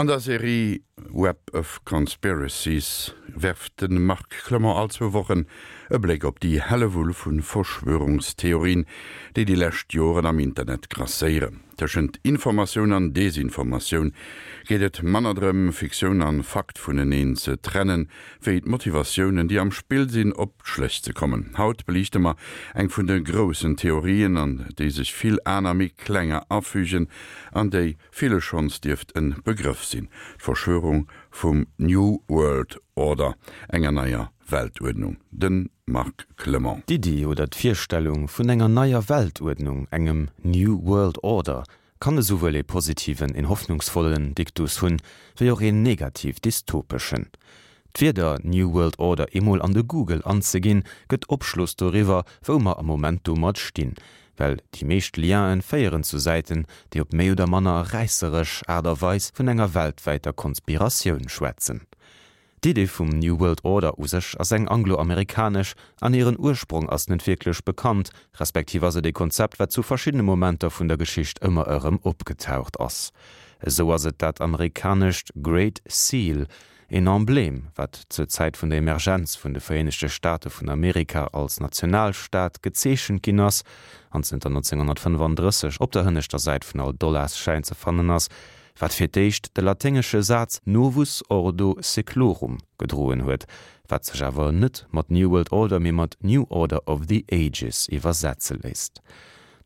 An der Serie Web of Conspiracies werft de Marc Clement all zwou Wochen e Bléck op déi Hellewull vu Verschwörungstheorien, déi déi lescht Joren am Internet grasséieren. Tëschent Informatioun an Desinformatioun geet et manner drëm, Fiktioun an Fakt vuneneen ze trennen, wéi d'Motivatiounen, déi am Spill sinn, op d'Schléch ze kommen. Haut beliichte mer eng vun de groussen Theorien, an déi sech vill aner méi klenger afügen an déi ville schonns dierft en Begrëff sinn, d'Verschwörung vum New World Order, enger neier Weltuerdnung. De Marc Clement. D'Iddi oder d'Virstellung vun enger neier Weltuerdnung, engem New World Order, kann esouwuel ee positiven, een hoffnungsvollen Diktus hunn, wéi och een negativ-dystopeschen. D'Wierder New World Order eemol an de Google anzeginn, gëtt Opschloss doriwwer, wou mer am Moment domat stinn, well déi meescht Lienen féieren zu Säiten, déi op méi oder manner räisseresch Aart a Weis vun enger weltwäiter Konspiratioun schwätzen. D'Idee vum New World Order u sech ass eng anglo-amerikanesch an hiren Ursprong ass net wierklech bekannt, respektiv ass et ee Konzept, wat zu verschiddene Momenter vun der Geschicht ëmmer erëm opgetaucht ass. Esou ass et dat amerikanescht Great Seal, een Emblem, wat zur Zäit vun der Emergenz vun de Vereenegte Staate vun Amerika als Nationalstaat gezeechent ginn ass an zënter 1935 op der hënneschter Säit vun all Dollarschäin ze fannen ass, wat fir d'éischt de laténgesche Saz Novus Ordo Seclorum gedroen huet, wat sech awer net mat New World Order, mee mat New Order of the Ages iwwersetze léisst.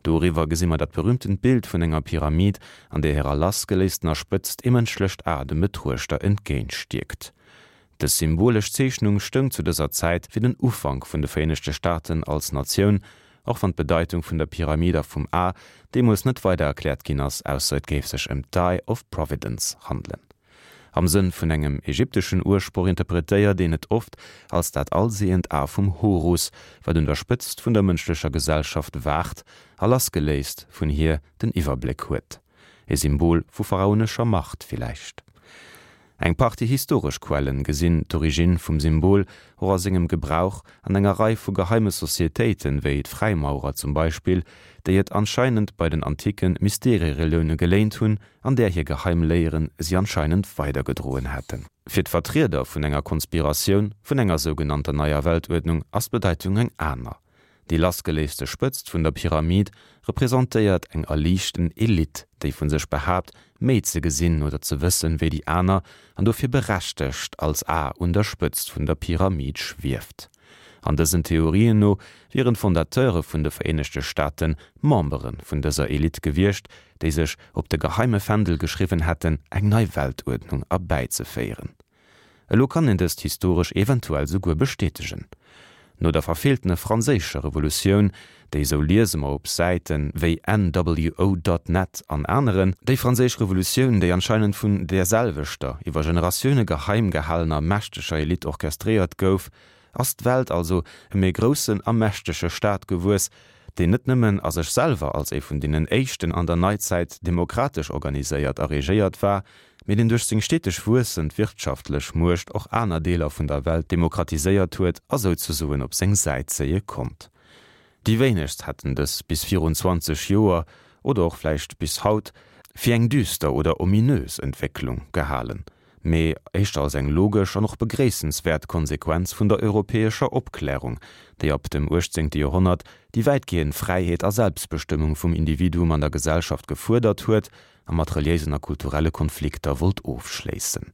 Doriwwer gesi mer dat berühmtent Bild vun enger Pyramid, an där hirer lassgeléistener Spëtzt ee mënschlecht A dem Betruechter entgéintstierkt. Dës symbolesch Zeechnung stoung zu dëser Zäit fir den Ufank vun de Vereenegte Staaten als Natioun, och wann d'Bedeitung vun der Pyramid a vum A deemools net weider erkläert ginn ass, ausser et géif sech ëm d'Eye of Providence handelen. Am Sënn vun engem ägypteschen Ursproch interpretéiert een et oft als dat allsehend A vum Horus, wat un der Spëtzt vun der mënschlecher Gesellschaft waacht a lassgeléist vun hir den Iwwerbléck huet. E Symbol vu pharaonescher Macht villäicht. Eng Partie historesch Quellen gesinn d'Origine vum Symbol och a sengem Gebrauch an enger Rei vu geheime Societéiten, wéi d'Fräimaurer zum Beispill, déi et anscheinend bei den anticke Mysterierelioune geléint hunn an där hir geheim Léieren si anscheinend weidergedroen hätten. Fir d'Vertrieder vun enger Konspiratioun, vun enger sougenannter neier Weltuerdnung, ass d'Bedeitung eng aner. Déi lassgeléiste Spëtzt vun der Pyramid representéiert eng erliichten Elite, déi vu sech behaapt, méi ze gesinn oder ze wëssen wéi déi aner an dofir berechtegt als A un der Spëtzt vun der Pyramid schwieft. An dësen Theorien no wieren d'Fondateure vun de Vereenegte Staate Membere vun dëser Elite gewiescht, déi sech op de geheime Fändel geschriwwen hätten, eng nei Weltuerdnung erbäizeféieren. Elo kann een dëst historesch eventuell souguer bestätegen. No der verfeeltene franséischer Revolutioun, déi, sou liese mer op Säite wéi NWO dot net an aneren, déi franséisch Revolutioun, déi anscheinend vun därselwechter, iwwer Generatioune geheim gehalener mächteger Elite orchestréiert gouf, ass d'Welt also ëm ee groussen a mächtege Staat gewuess, deen net nëmmen a sech selwer als ee vun deenen éischten an der Neizäit demokratesch organiséiert a regéiert war, mee deen duerch seng steteg wuessend wirtschaftlech Muecht och aner Deeler vun der Welt demokratiséiert huet a souzesoen op seng Säit zéie konnt. Déi wéinegst hätten dës bis virun 20 Joer, oder och vläicht bis haut, fir eng düster oder ominös Entwécklung gehalen, mee éischter als eng logesch an och begréissenswäert Konsequenz vun der europäescher Opklärung, déi ab dem 18. Joerhonnert déi wäitgehend Fräiheet a Selbstbestëmmung vum Individuum an der Gesellschaft gefuerdert huet a mat reliéisen a kulturelle Konflikter wollt ofschléissen.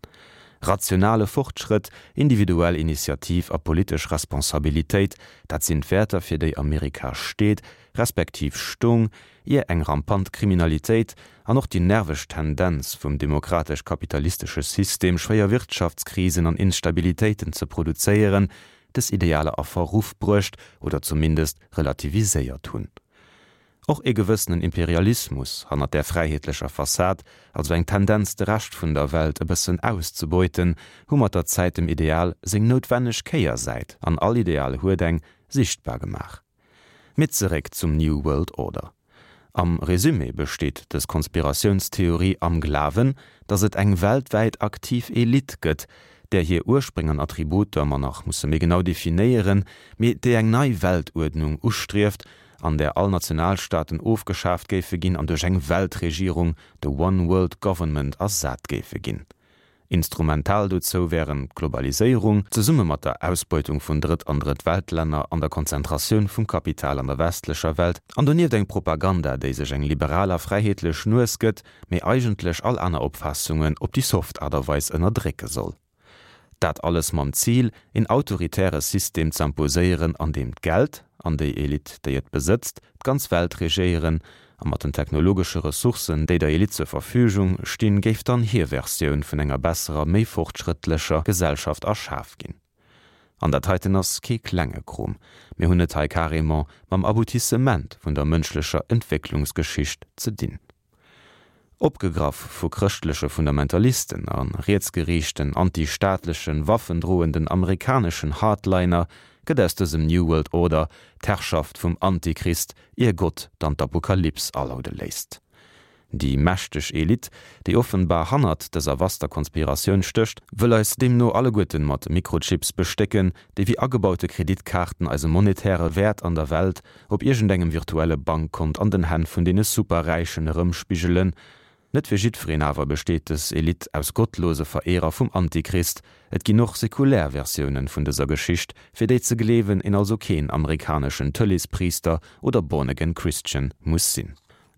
Rationale Fortschrëtt, individuell Initiativ a politesch Responsabilitéit, dat sinn d'Wäerter fir déi Amerika steet, respektiv stoung, ier eng rampant Kriminalitéit an och déi nerveg Tendenz vum demokratesch-kapitalistesche System schwéier Wirtschaftskrisen an Instabilitéiten ze produzéieren, dës Idealer a Verruff bruecht oder zumindest relativiséiert hunn. Och ee gewëssenen Imperialismus hannert där fräiheetlecher Fassad, also eng Tendenz de Rescht vun der Welt e bëssen auszebeuten, hu mat der Zäit dem Ideal seng noutwenneg Kéiersäit, an all Ideal huet eng, sichtbar gemaach. Mee zeréck zum New World Order. Am Resumé besteet dës Konspiratiounstheorie am Glawen, datt et eng weltwäit aktiv Elite gëtt, där hir Urspréng an Attributer mer nach musse méi genau definéieren, mee déi eng nei Weltuerdnung ustrieft. an där all Nationalstaaten ofgeschaaft géife ginn an duerch eng Weltregierung, de One World Government, ersat géife ginn. Instrumental dozou wären d'Globaliséierung, zesumme mat der Ausbeutung vun Drëtt an Drëtt-Welt-Länner an der Konzentratioun vum Kapital an der westlecher Welt, an donieft eng Propaganda, déi sech eng liberal a fräiheetlech Nues gëtt, mee eigentlech all aner Opfaassungen op déi soft Aart a Weis ënnerdrécke soll. Dat alles mam Zil, een autoritäre System z'imposéieren, an deem d'Geld, an déi Elite, déi et besëtzt, d'ganz Welt regéieren, a mat den technologesche Ressourcen, déi der Elite zur Verfügung stinn, géif dann hir Versioun vun enger besserer, méi fortschrëttlecher Gesellschaft erschaf ginn. An dat heiten ass kee klenge Krom, mir hunn et hei carrément mam Aboutissement vun der mënschlecher Entwécklungsgeschicht ze dinn. Opgegraff vu chrëschtleche Fundamentalisten a rietsgeriichten, anti-staatlechen, waffendroenden amerikaneschen Hardliner gëtt aus dësem New World Order d'Herrschaft vum Antichrist, ier Gott dann d'Apokalyps alaude léisst. Déi mächteg Elite, déi offenbar hannert dëser vaster Konspiratioun stécht, wëll eis deemno alleguerten mat Mikrochips bestécken, déi wéi agebaute Kreditkaarten eise monetäre Wäert an der Welt op iergendengem virtuelle Bankkont an den Hänn vun deene Superräichen erëmspigelen. Net fir jiddwereen awer besteet dës Elite aus gottlose Verehrer vum Antichrist. Et ginn och sekulär Versiounen vun dëser Geschicht, fir déi ze gleewen een also keen amerikaneschen Tëleespriister oder Born Again Christian muss sinn.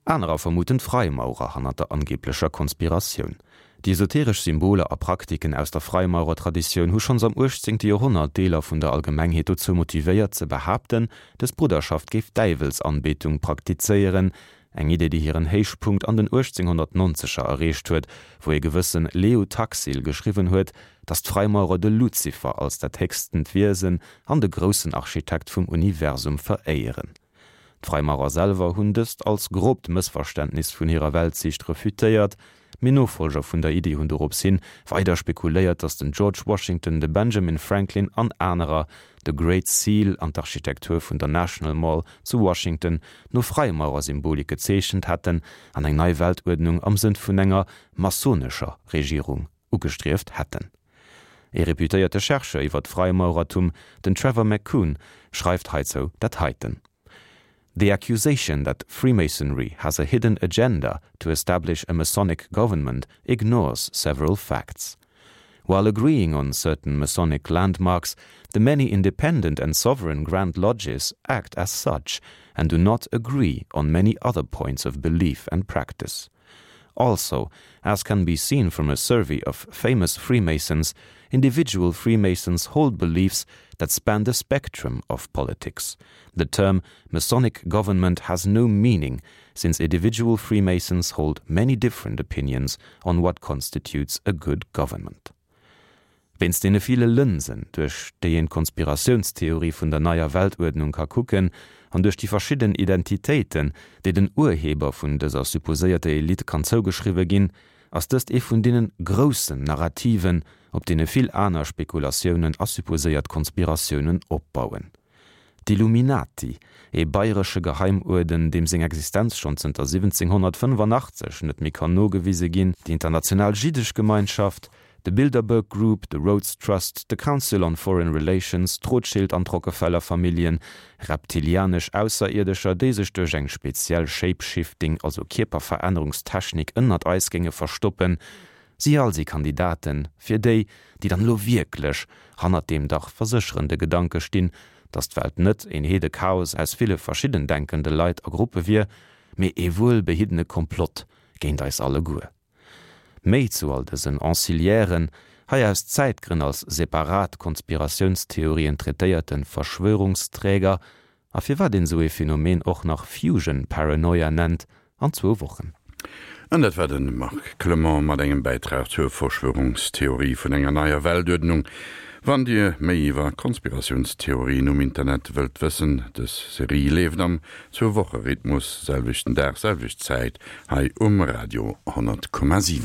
Anerer vermuten d'Fraimaurer hannert der angeblecher Konspiratioun. Déi esoteresch Symboler a Praktiken aus der Freimaurertraditioun hu schonns am 18. Joerhonnert Deeler vun der Allgemengheet dozou motivéiert ze behaapten, dës Brudderschaft géif Däiwelsanbetung praktizéieren, eng Idee déi hiren Héichpunkt an den 1890er erreecht huet, wou ee gewësse Leo Taxil geschriwwen huet, datt d'Freimaurer de Luzifer als dat héchstent Wiesen an de groussen Architekt vum Universum veréieren. D'Fraimaurer selwer hunn dëst als grobt Mëssverständnis vun hirer Weltsiicht refutéiert, mee Nofollger vun der Iddi hunn dorops hin weider spekuléiert, datt den George Washington, de Benjamin Franklin an anerer de Great Seal an d'Architektur vun der National Mall zu Washington no FreimaurerSymbolik gezeechent hätten an eng nei Weltuerdnung am Sënn vun enger masonescher Regierung ugestrieft hätten. Ee reputéierte Chercheur iwwer d'Freimaurertum, den Trevor McCune, schreift heizou dat heiten, The accusation that Freemasonry has a hidden agenda to establish a Masonic government ignores several facts. While agreeing on certain Masonic landmarks, the many independent and sovereign Grand Lodges act as such and do not agree on many other points of belief and practice. Also, as can be seen from a survey of famous Freemasons, individual Freemasons hold beliefs that span the spectrum of politics. The term Masonic government has no meaning, since individual Freemasons hold many different opinions on what constitutes a good government. Wéinst deene ville Lënsen, duerch déi een d'Konspiratiounstheorie vun der neier Weltuerdnung ka kucken, an duerch déi verschidden Identitéiten, déi den Urheber vun dëser supposéierter Elite kann zougeschriwwe ginn, ass dëst ee vun deene groussen Narrativen, op deene vill aner Spekulatiounen a supposéiert Konspiratiounen opbauen. D'Illuminati, ee bayresche Geheimuerden, deem seng Existenz schonn zënter 1785 net méi kann nogewise ginn, déi international jiddesch Gemeinschaft, de Bilderberg Group, de Rhodes Trust, de Council on Foreign Relations, d'Rothschild an d'Rockefeller Familljen, reptilianesch Ausserierdescher, déi sech duerch eng speziell Shape-Shifting, also Kierperverännerungstechnik ënnert eis géinge verstoppen, Si all si Kandidaten fir déi, déi dann elo wierklech hannert deem dach versécherende Gedanke stinn, datt d'Welt net een Heedechaos aus ville verschidden denkende Leit a Gruppe wier, mee ee wuelbehiddene Komplott géint eis alleguer. Méi zu all dësen Anciliairen, hei aus Zäitgrënn als separat Konspiratiounstheorien traitéierte Verschwörungsträger, A firwat een esou ee Phänomen och nach Fusion Paranoia nennt, an zwou Wochen. An dat war de Marc Clement mat engem Bäitrag zur Verschwörungstheorie vun enger neier Weltuerdnung. Wann Dir méi iwwer Konspiratiounstheorien um Internet wëllt wëssen, dës Serie leeft am Zwou-Woche-Rhythmus, selwechten Dag, selwecht Zäit, hei um Radio 100,7.